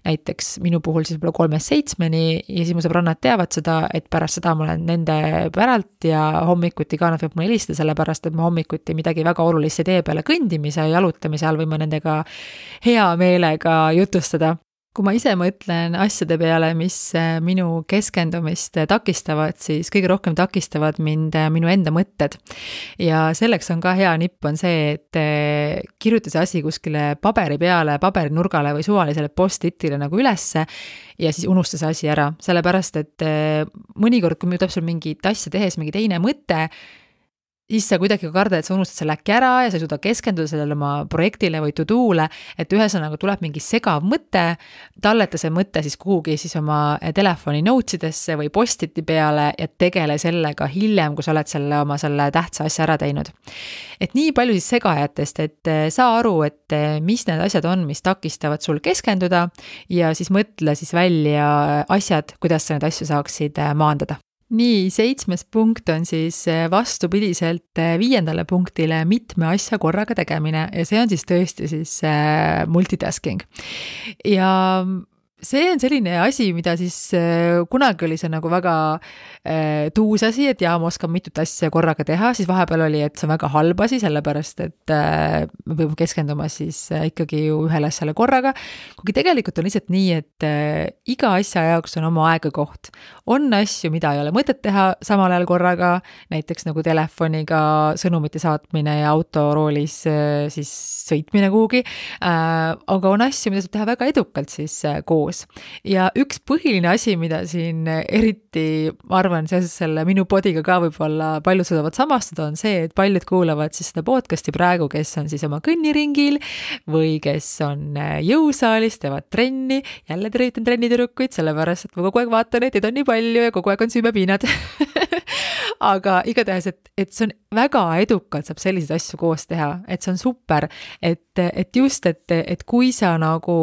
näiteks minu puhul siis võib-olla 3-7 ja siis mu sõbrannad teavad seda, et pärast seda ma olen nende päralt ja hommikuti ka nad võib mulle helistada, sellepärast et ma hommikuti midagi väga olulist tee peale kõndimise ja jalutamise all võime nendega hea meelega jutustada. Kui ma ise mõtlen asjade peale, mis minu keskendumist takistavad, siis kõige rohkem takistavad mind minu enda mõtted. Ja selleks on ka hea nipp on see, et kirjuta see asi kuskile paberi peale, paberinurgale või suvalisele post-itile nagu ülesse ja siis unusta see asi ära. Sellepärast, et mõnikord, kui tuleb sul mingit asja tehes mingi teine mõte, siis sa kuidagi karda, et sa unustad selle äkki ära ja sa ei suuda keskenduda sellele oma projektile või to-do'le, et ühesõnaga tuleb mingi segav mõte, talleta see mõte siis kuhugi siis oma telefoni notesidesse või post-iti peale ja tegele sellega hiljem, kui sa oled selle tähtsa asja ära teinud. Et nii palju siis segajatest, et saa aru, et mis need asjad on, mis takistavad sul keskenduda ja siis mõtle siis välja asjad, kuidas sa need asju saaksid maandada. Nii, 7. punkt on siis vastupidiselt 5. punktile mitme asja korraga tegemine ja see on siis tõesti siis multitasking. Ja see on selline asi, mida siis kunagi oli see nagu väga tuus asi, et ma oskan mitut asja korraga teha, siis vahepeal oli, et see on väga halb asi, sellepärast, et me peame keskenduma siis ikkagi ju ühele asjale korraga, kuigi tegelikult on lihtsalt nii, et iga asja jaoks on oma aegakoht. On asju, mida ei ole mõtet teha samal ajal korraga, näiteks nagu telefoniga sõnumite saatmine ja autoroolis siis sõitmine kuhugi, aga on asju, mida saab teha väga edukalt siis koos. Ja üks põhiline asi, mida siin eriti, ma arvan, seoses selle minu podiga ka võib-olla paljud saavad samastuda, on see, et paljud kuulavad siis seda podcasti praegu, kes on siis oma kõnniringil või kes on jõusaalis, teevad trenni, jälle tervitan trennitüdrukuid, sellepärast, et ma kogu aeg vaatan, et neid on nii palju ja kogu aeg on süümepiinad. Aga igatahes, et see on väga edukalt saab selliseid asju koos teha, et see on super, et just, et kui sa nagu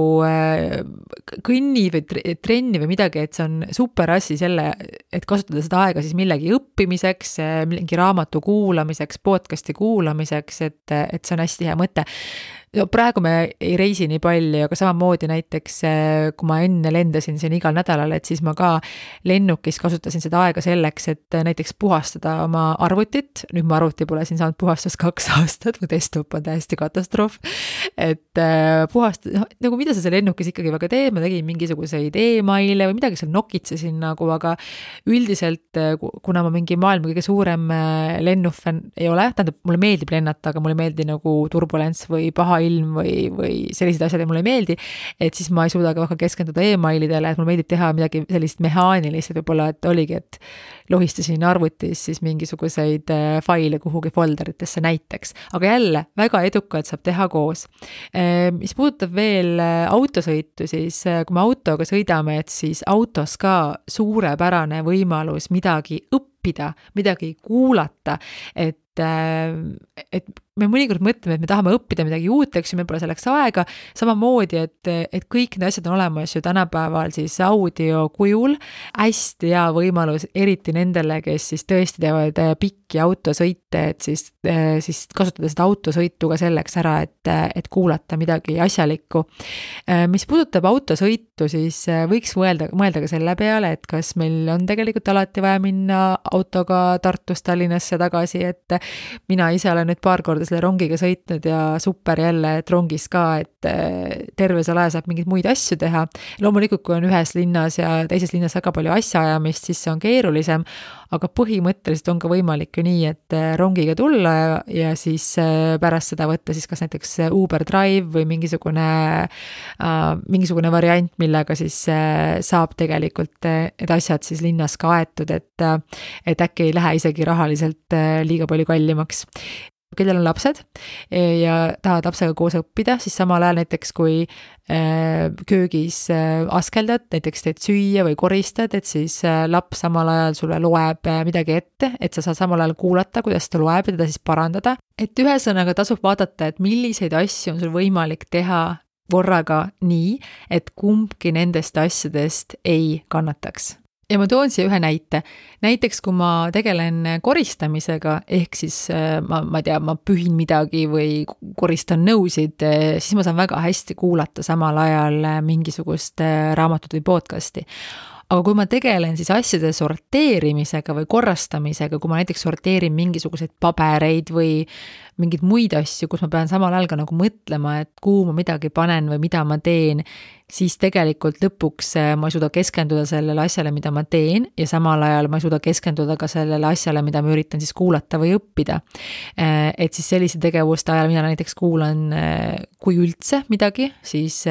kõnni või trenni või midagi, et see on super asi selle, et kasutada seda aega siis millegi õppimiseks, mingi raamatu kuulamiseks, podcasti kuulamiseks, et see on hästi hea mõte. Praegu me ei reisi nii palju, aga samamoodi näiteks, kui ma enne lendasin siin igal nädalal, et siis ma ka lennukis kasutasin seda aega selleks, et näiteks puhastada oma arvutit. Nüüd ma arvuti pole siin saanud puhastust 2 aastat, mu desktop on täiesti katastroof. Et puhastada, nagu mida sa seal lennukis ikkagi väga teed, ma tegin mingisuguseid e-maile või midagi seal nokitsesin nagu, aga üldiselt, kuna ma mingi maailma kõige suurem lennufän ei ole, tähendab, mulle meeldib lennata, aga mulle ei meeldi nagu turbulents või paha ilm või sellised asjad ja mulle ei meeldi, et siis ma ei suuda ka väga keskenduda e-mailidele, et mulle meeldib teha midagi sellist mehaanilist, et võib-olla, et oligi, et lohistasin arvutis siis mingisuguseid faile kuhugi folderitesse näiteks, aga jälle väga edukalt saab teha koos. Mis puudutab veel autosõitu, siis kui me autoga sõidame, et siis autos ka suurepärane võimalus midagi õppida, midagi kuulata, et et me mõnikord mõtleme, et me tahame õppida midagi uut, eks ju, meil pole selleks aega, samamoodi, et kõik need asjad on olemas ju tänapäeval siis audio kujul, hästi hea võimalus, eriti nendele, kes siis tõesti teevad pikki autosõite, et siis kasutada seda autosõitu ka selleks ära, et kuulata midagi asjalikku. Mis puudutab autosõitu, siis võiks mõelda ka selle peale, et kas meil on tegelikult alati vaja minna autoga Tartust Tallinnasse tagasi, et mina ise olen nüüd paar korda selle rongiga sõitnud ja super jälle, et rongis ka, et terve selle aja saab mingeid muid asju teha. Loomulikult, kui on ühes linnas ja teises linnas väga palju asjaajamist, siis see on keerulisem, aga põhimõtteliselt on ka võimalik ju nii, et rongiga tulla ja siis pärast seda võtta siis kas näiteks Uber Drive või mingisugune variant, millega siis saab tegelikult need asjad siis linnas ka aetud, et äkki ei lähe isegi rahaliselt liiga palju kallimaks. Kellel on lapsed ja tahavad lapsega koos õppida, siis samal ajal näiteks kui köögis askeldad, näiteks teed süüa või koristad, et siis laps samal ajal sulle loeb midagi ette, et sa saad samal ajal kuulata, kuidas ta loeb ja teda siis parandada. Et ühesõnaga tasub vaadata, et milliseid asju on sul võimalik teha korraga nii, et kumbki nendest asjadest ei kannataks. Ja ma toon siia ühe näite. Näiteks, kui ma tegelen koristamisega, ehk siis ma pühin midagi või koristan nõusid, siis ma saan väga hästi kuulata samal ajal mingisugust raamatut või podcasti. Aga kui ma tegelen siis asjade sorteerimisega või korrastamisega, kui ma näiteks sorteerin mingisuguseid pabereid või mingeid muid asju, kus ma pean samal ajal ka nagu mõtlema, et kuhu ma midagi panen või mida ma teen, siis tegelikult lõpuks ma ei suuda keskenduda sellele asjale, mida ma teen ja samal ajal ma ei suuda keskenduda ka sellele asjale, mida ma üritan siis kuulata või õppida. Et siis sellise tegevuste ajal mina näiteks kuulan, kui üldse midagi, siis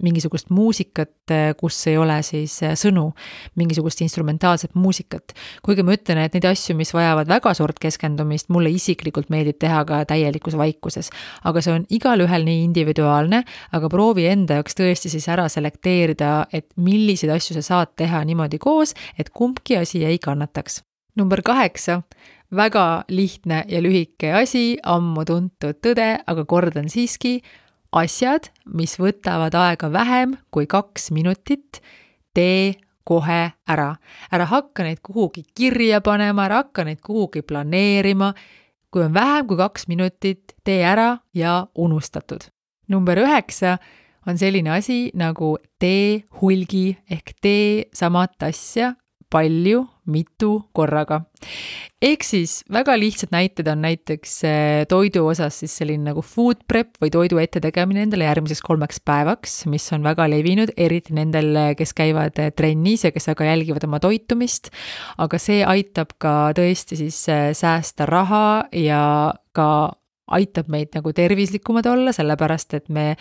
mingisugust muusikat, kus ei ole siis sõnu, mingisugust instrumentaalset muusikat. Kuigi ma ütlen, et neid asju, mis vajavad väga suurt keskendumist, mulle isiklikult meeldib teha ka täielikus vaikuses. Aga see on igal ühel nii individuaalne, aga proovi enda jaoks tõesti siis ära selekteerida, et milliseid asju sa saad teha niimoodi koos, et kumbki asi ei kannataks. Number 8. Väga lihtne ja lühike asi, ammu tuntud tõde, aga kordan siiski, asjad, mis võtavad aega vähem kui 2 minutit, tee kohe ära. Ära hakka neid kuhugi kirja panema, ära hakka neid kuhugi planeerima. Kui on vähem kui 2 minutit, tee ära ja unustatud. Number 9 on selline asi nagu tee hulgi ehk tee samat asja palju, mitu korraga. Ehk siis väga lihtsad näited on näiteks toidu osas siis selline nagu food prep või toidu ette tegemine endale järgmiseks 3 päevaks, mis on väga levinud, eriti nendel, kes käivad trennis ja kes aga jälgivad oma toitumist, aga see aitab ka tõesti siis säästa raha ja ka aitab meid nagu tervislikumad olla, sellepärast, et me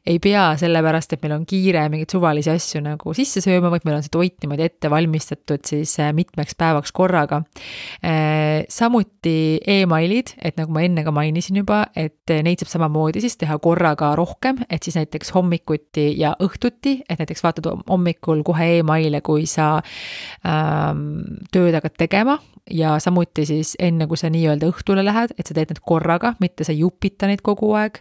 ei pea sellepärast, et meil on kiire mingeid suvalisi asju nagu sisse sööma, vaid meil on see toit niimoodi ette valmistatud siis mitmeks päevaks korraga. Samuti e-mailid, et nagu ma enne ka mainisin juba, et neid saab samamoodi siis teha korraga rohkem, et siis näiteks hommikuti ja õhtuti, et näiteks vaatad hommikul kohe e-maile, kui sa tööd hakkad tegema ja samuti siis enne, kui sa nii-öelda õhtule lähed, et sa teed need korraga, mitte sa jupita neid kogu aeg.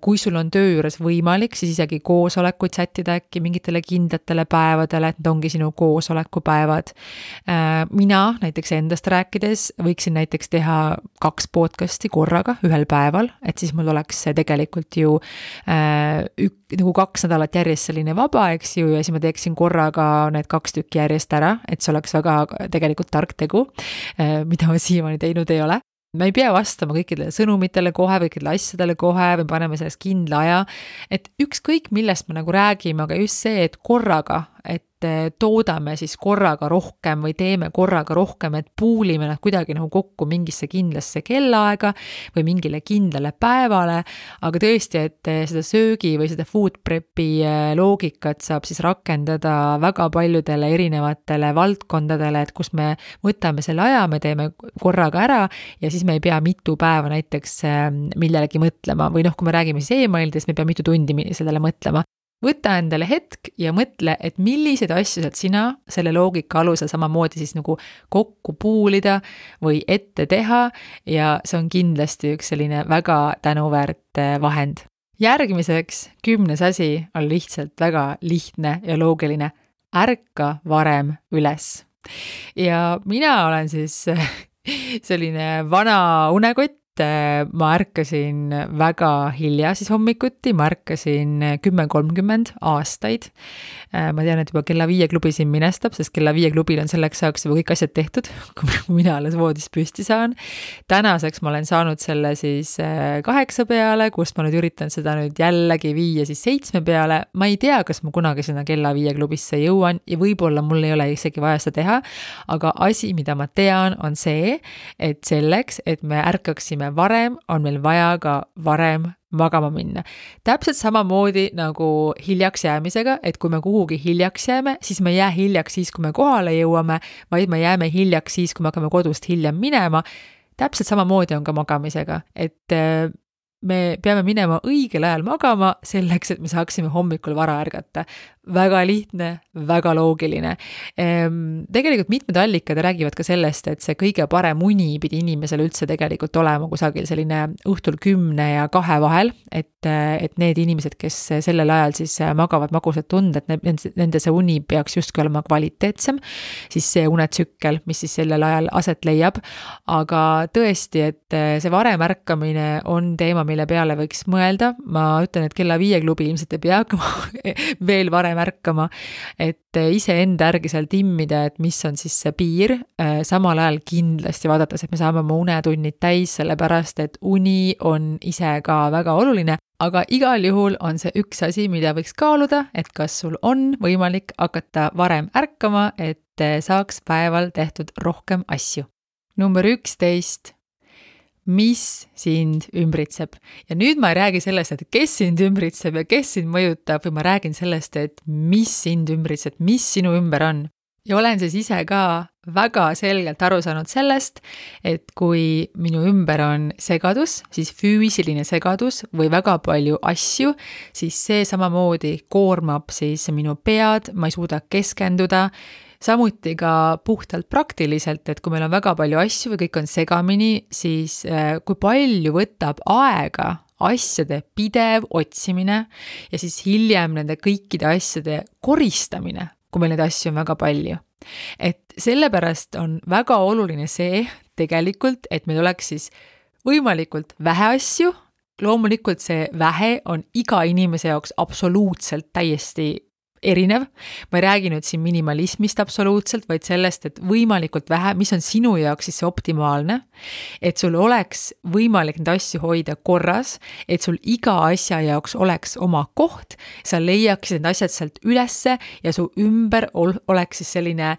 Kui sul on töö juures võimalik, siis isegi koosolekuid sättida äkki mingitele kindlatele päevadele, et need ongi sinu koosolekupäevad. Mina näiteks endast rääkides võiksin näiteks teha 2 podcasti korraga ühel päeval, et siis mul oleks tegelikult ju nagu 2 nädalat järjest selline vaba, eks ju, ja siis ma teeksin korraga need 2 tükki järjest ära, et see oleks väga tegelikult tark tegu, mida ma siiamaani teinud ei ole. Me ei pea vastama kõikidele sõnumitele kohe või kõikidele asjadele kohe või paneme sellest kindla aja, et ükskõik millest me nagu räägime, aga just see, et korraga, et toodame siis korraga rohkem või teeme korraga rohkem, et puulime nad kuidagi nagu kokku mingisse kindlasse kellaaega või mingile kindlale päevale, aga tõesti, et seda söögi või seda food prepi loogikat saab siis rakendada väga paljudele erinevatele valdkondadele, et kus me võtame selle aja, me teeme korraga ära ja siis me ei pea mitu päeva näiteks millelegi mõtlema või kui me räägime siis e-mailidest, me ei pea mitu tundi sellele mõtlema. võta endale hetk ja mõtle, et milliseid asju saad sina selle loogika alusel samamoodi siis nagu kokku puulida või ette teha ja see on kindlasti üks selline väga tänuväärt vahend. Järgmiseks 10. asi on lihtsalt väga lihtne ja loogiline. Ärka varem üles. Ja mina olen siis selline vana unekott. Ma ärkasin väga hilja siis hommikuti, ma ärkasin 10:30 aastaid. Ma tean, et juba kella 5 klubi siin minestab, sest kella 5 klubil on selleks ajaks juba kõik asjad tehtud, kui mina alles voodist püsti saan. Tänaseks ma olen saanud selle siis 8 peale, kust ma nüüd üritan seda nüüd jällegi viia siis 7 peale. Ma ei tea, kas ma kunagi sinna kella 5 klubisse jõuan ja võib-olla mul ei ole isegi vaja seda teha, aga asi, mida ma tean, on see, et selleks, et me ärkaksime varem, on meil vaja ka varem magama minna. Täpselt samamoodi nagu hiljaks jäämisega, et kui me kuhugi hiljaks jääme, siis me ei jää hiljaks siis, kui me kohale jõuame, vaid me jääme hiljaks siis, kui me hakkame kodust hiljem minema. Täpselt samamoodi on ka magamisega, et me peame minema õigel ajal magama selleks, et me saaksime hommikul vara ärgata. Väga lihtne, väga loogiline. Tegelikult mitmed allikad räägivad ka sellest, et see kõige parem uni pidi inimesel üldse tegelikult olema kusagil selline õhtul 10 ja 2 vahel, et need inimesed, kes sellel ajal siis magavad magusad tunded, nende see uni peaks justkui olema kvaliteetsem, siis see unetsükkel, mis siis sellel ajal aset leiab. Aga tõesti, et see varem ärkamine on teema, mille peale võiks mõelda. Ma ütlen, et kella 5 klubi ilmselt ei pea hakkama veel varem ärkama, et ise enda järgi seal timmida, et mis on siis see piir, samal ajal kindlasti vaadates, et me saame oma unetunnid täis, sellepärast, et uni on ise ka väga oluline, aga igal juhul on see üks asi, mida võiks kaaluda, et kas sul on võimalik hakata varem ärkama, et saaks päeval tehtud rohkem asju. Number 11. Mis sind ümbritseb. Ja nüüd ma ei räägi sellest, et kes sind ümbritseb ja kes sind mõjutab, või ma räägin sellest, et mis sind ümbritseb, mis sinu ümber on. Ja olen siis ise ka väga selgelt aru saanud sellest, et kui minu ümber on segadus, siis füüsiline segadus või väga palju asju, siis see samamoodi koormab siis minu pead, ma ei suuda keskenduda. Samuti ka puhtalt praktiliselt, et kui meil on väga palju asju või kõik on segamini, siis kui palju võtab aega asjade pidev otsimine ja siis hiljem nende kõikide asjade koristamine, kui meil neid asju on väga palju. Et sellepärast on väga oluline see tegelikult, et meil oleks siis võimalikult vähe asju. Loomulikult see vähe on iga inimese jaoks absoluutselt täiesti erinev. Ma ei räägi nüüd siin minimalismist absoluutselt, vaid sellest, et võimalikult vähe, mis on sinu jaoks siis see optimaalne, et sul oleks võimalik neid asju hoida korras, et sul iga asja jaoks oleks oma koht, sa leiaksid need asjad sealt ülesse ja su ümber oleks siis selline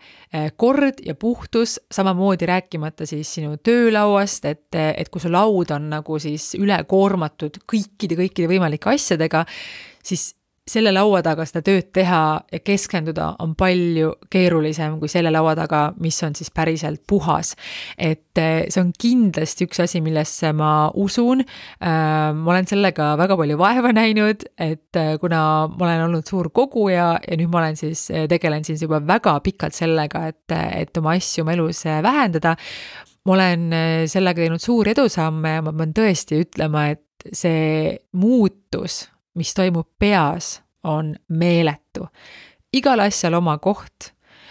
kord ja puhtus, samamoodi rääkimata siis sinu töölauast, et kui su laud on nagu siis ülekoormatud kõikide võimalike asjadega, siis selle laua taga seda tööd teha ja keskenduda on palju keerulisem kui selle laua taga, mis on siis päriselt puhas. Et see on kindlasti üks asi, millesse ma usun. Ma olen sellega väga palju vaeva näinud, et kuna ma olen olnud suur koguja ja nüüd ma olen siis, tegelen siis juba väga pikalt sellega, et oma asju oma elus vähendada. Ma olen sellega teinud suuri edusamme ja ma pean tõesti ütlema, et see muutus, mis toimub peas, on meeletu. Igal asjal oma koht,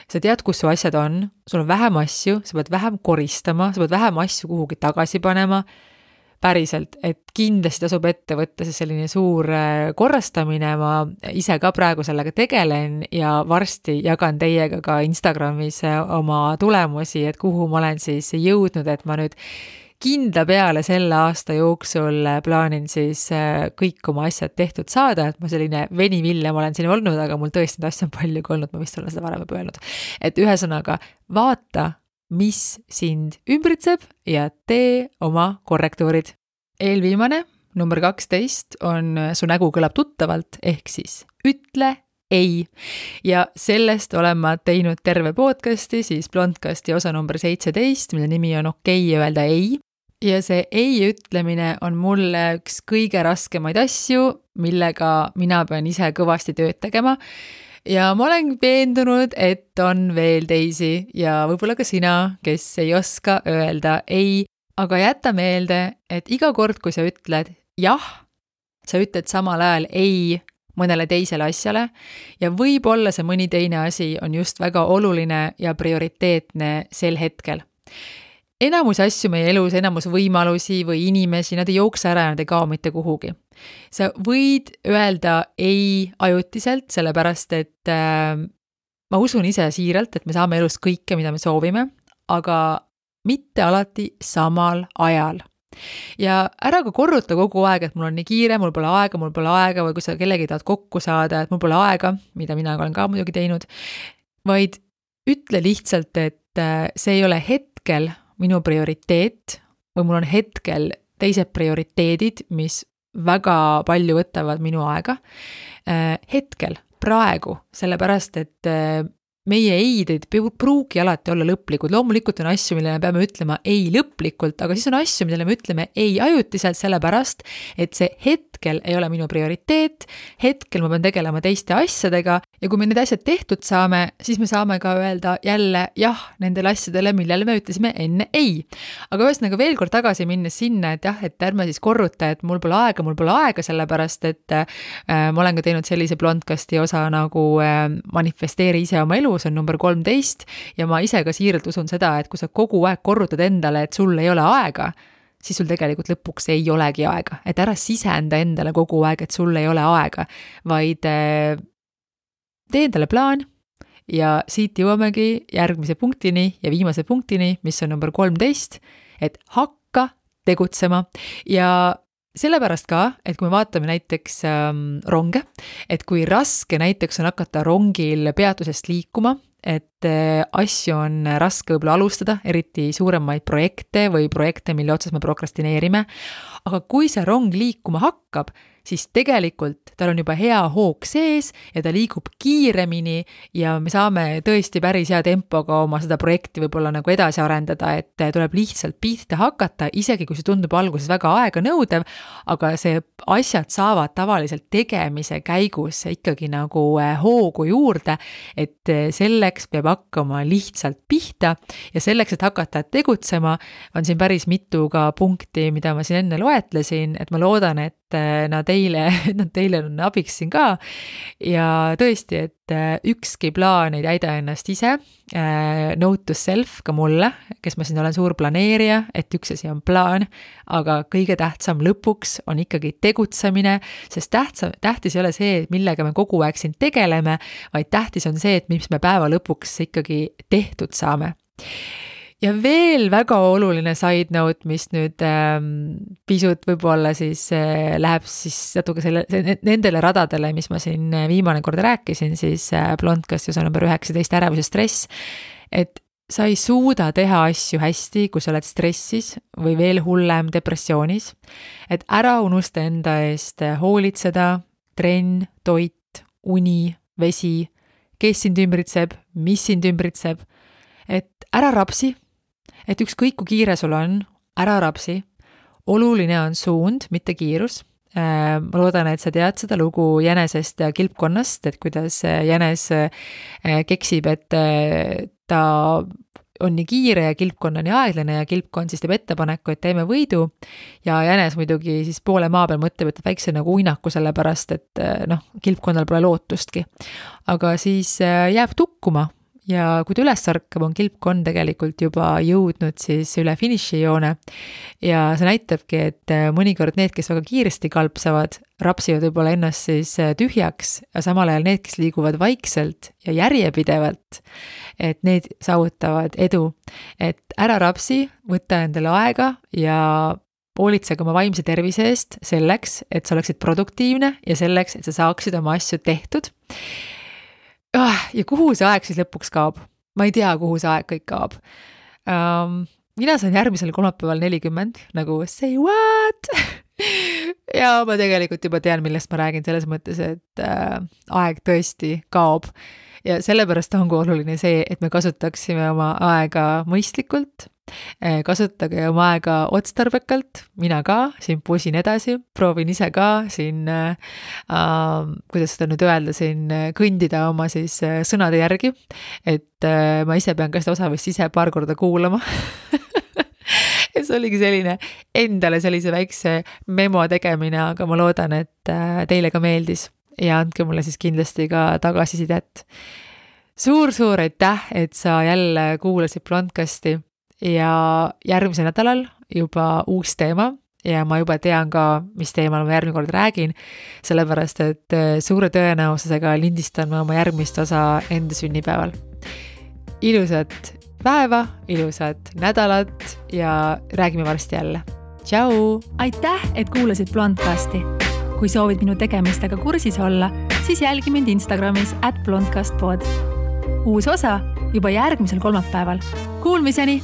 sa tead, kus su asjad on, sul on vähem asju, sa pead vähem koristama, sa pead vähem asju kuhugi tagasi panema, päriselt, et kindlasti tasub ette võtta see selline suur korrastamine, ma ise ka praegu sellega tegelen ja varsti jagan teiega ka Instagramis oma tulemusi, et kuhu ma olen siis jõudnud, et ma nüüd kindla peale selle aasta jooksul plaanin siis kõik oma asjad tehtud saada, et ma selline venivillem olen siin olnud, aga mul tõesti asju on palju kui olnud, ma vist olen seda varem juba öelnud. Et ühesõnaga, vaata, mis sind ümbritseb ja tee oma korrektuurid. Eelviimane, number 12, on su nägu kõlab tuttavalt, ehk siis ütle ei. Ja sellest olen ma teinud terve podcasti, siis Blondcasti osa number 17, mille nimi on okei öelda ei. ja see ei ütlemine on mulle üks kõige raskemaid asju, millega mina pean ise kõvasti tööd tegema. Ja ma olen veendunud, et on veel teisi ja võib-olla ka sina, kes ei oska öelda ei, aga jäta meelde, et iga kord, kui sa ütled jah, sa ütled samal ajal ei mõnele teisele asjale ja võib-olla see mõni teine asi on just väga oluline ja prioriteetne sel hetkel. Enamus asju meie elus, enamus võimalusi või inimesi, nad ei jookse ära ja nad ei kao mitte kuhugi. Sa võid öelda ei ajutiselt, sellepärast et ma usun ise siiralt, et me saame elus kõike, mida me soovime, aga mitte alati samal ajal. Ja ära ka korruta kogu aeg, et mul on nii kiire, mul pole aega või kui sa kellegi tahad kokku saada, et mul pole aega, mida mina olen ka muidugi teinud, vaid ütle lihtsalt, et see ei ole hetkel minu prioriteet või mul on hetkel teised prioriteedid, mis väga palju võtavad minu aega. Hetkel, praegu, sellepärast, et meie eid ei pruugi alati olla lõplikud. Loomulikult on asju, millele me peame ütlema ei lõplikult, aga siis on asju, millele me ütleme ei ajutiselt, sellepärast, et see hetkel ei ole minu prioriteet, hetkel ma pean tegelema teiste asjadega ja kui me need asjad tehtud saame, siis me saame ka öelda jälle jah nendele asjadele, millele me ütlesime enne ei. Aga ühesõnaga veel kord tagasi minnes sinna, et jah, et ärme siis korruta, et mul pole aega, sellepärast, et ma olen ka teinud sellise blondcasti osa nagu manifesteeri ise oma elu, see on number 13 ja ma ise ka siiralt usun seda, et kui sa kogu aeg korrutad endale, et sul ei ole aega, siis sul tegelikult lõpuks ei olegi aega. Et ära sisenda endale kogu aeg, et sul ei ole aega, vaid tee endale plaan ja siit jõuamegi järgmise punktini ja viimase punktini, mis on number 13, et hakka tegutsema ja sellepärast ka, et kui me vaatame näiteks ronge, et kui raske näiteks on hakata rongil peatusest liikuma, et asju on raske võib-olla alustada, eriti suuremaid projekte või projekte, mille otsas me prokrastineerime, aga kui see rong liikuma hakkab, siis tegelikult tal on juba hea hoog sees ja ta liigub kiiremini ja me saame tõesti päris hea tempoga oma seda projekti võib-olla nagu edasi arendada, et tuleb lihtsalt pihta hakata, isegi kui see tundub alguses väga aega nõudev, aga see asjad saavad tavaliselt tegemise käigus ikkagi nagu hoogu juurde, et selleks peab hakkama lihtsalt pihta ja selleks, et hakata tegutsema, on siin päris mitu ka punkti, mida ma siin enne loetlesin, et ma loodan, et nad teile on abiks siin ka ja tõesti, et ükski plaan ei täida ennast ise, note to self ka mulle, kes ma siin olen suur planeerija, et üks asi on plaan, aga kõige tähtsam lõpuks on ikkagi tegutsemine, sest tähtis ei ole see, millega me kogu aeg siin tegeleme, vaid tähtis on see, et mis me päeva lõpuks ikkagi tehtud saame. Ja veel väga oluline side note, mis nüüd pisut võib-olla siis läheb siis natuke nendele radadele, mis ma siin viimane kord rääkisin, siis blondcasti osa number 19 ärevus ja stress, et sa ei suuda teha asju hästi, kui sa oled stressis või veel hullem depressioonis, et ära unusta enda eest hoolitseda, trenn, toit, uni, vesi, kes sind ümbritseb, mis sind ümbritseb, et ära rapsi, et ükskõik kui kiire sul on, ära rapsi, oluline on suund, mitte kiirus. Ma loodan, et sa tead seda lugu jänesest ja kilpkonnast, et kuidas jänes keksib, et ta on nii kiire ja kilpkonna nii aeglane ja kilpkonn siis teeb ettepaneku, et teeme võidu ja jänes muidugi siis poole maa peal mõtleb, et väikse nagu uinaku sellepärast, et kilpkonnal pole lootustki. Aga siis jääb tukkuma. Ja kui ta üles sarkab, on kilpkonn tegelikult juba jõudnud siis üle finišijoone ja see näitabki, et mõnikord need, kes väga kiiresti kalpsavad, rapsivad võib-olla ennast siis tühjaks ja samal ajal need, kes liiguvad vaikselt ja järjepidevalt, et need saavutavad edu. Et ära rapsi, võtta endale aega ja hoolitsege oma vaimse tervise eest selleks, et sa oleksid produktiivne ja selleks, et sa saaksid oma asju tehtud. Ja kuhu see aeg siis lõpuks kaob? Ma ei tea, kuhu see aeg kõik kaob. Mina saan järgmisel kolmapäeval 40, nagu say what? Ja ma tegelikult juba tean, millest ma räägin selles mõttes, et aeg tõesti kaob. Ja sellepärast ongi oluline see, et me kasutaksime oma aega mõistlikult kasutage oma aega otstarbekalt, mina ka siin pusin edasi, proovin ise ka siin, kuidas seda nüüd öelda, siin kõndida oma siis sõnade järgi, et ma ise pean ka seda osa vist ise paar korda kuulama. Et see oligi selline endale sellise väikse memo tegemine, aga ma loodan, et teile ka meeldis ja andke mulle siis kindlasti ka tagasisidet. Suur aitäh, et sa jälle kuulasid Blondcasti ja järgmisel nädalal juba uus teema ja ma juba tean ka, mis teemal ma järgmine kord räägin, sellepärast, et suure tõenäosusega lindistan ma oma järgmist osa enda sünnipäeval. Ilusat päeva, ilusat nädalat ja räägime varsti jälle. Tšau! Aitäh, et kuulasid Blondcasti. Kui soovid minu tegemistega kursis olla, siis jälgi mind Instagramis @blondcastpod. Uus osa juba järgmisel kolmapäeval. Kuulmiseni!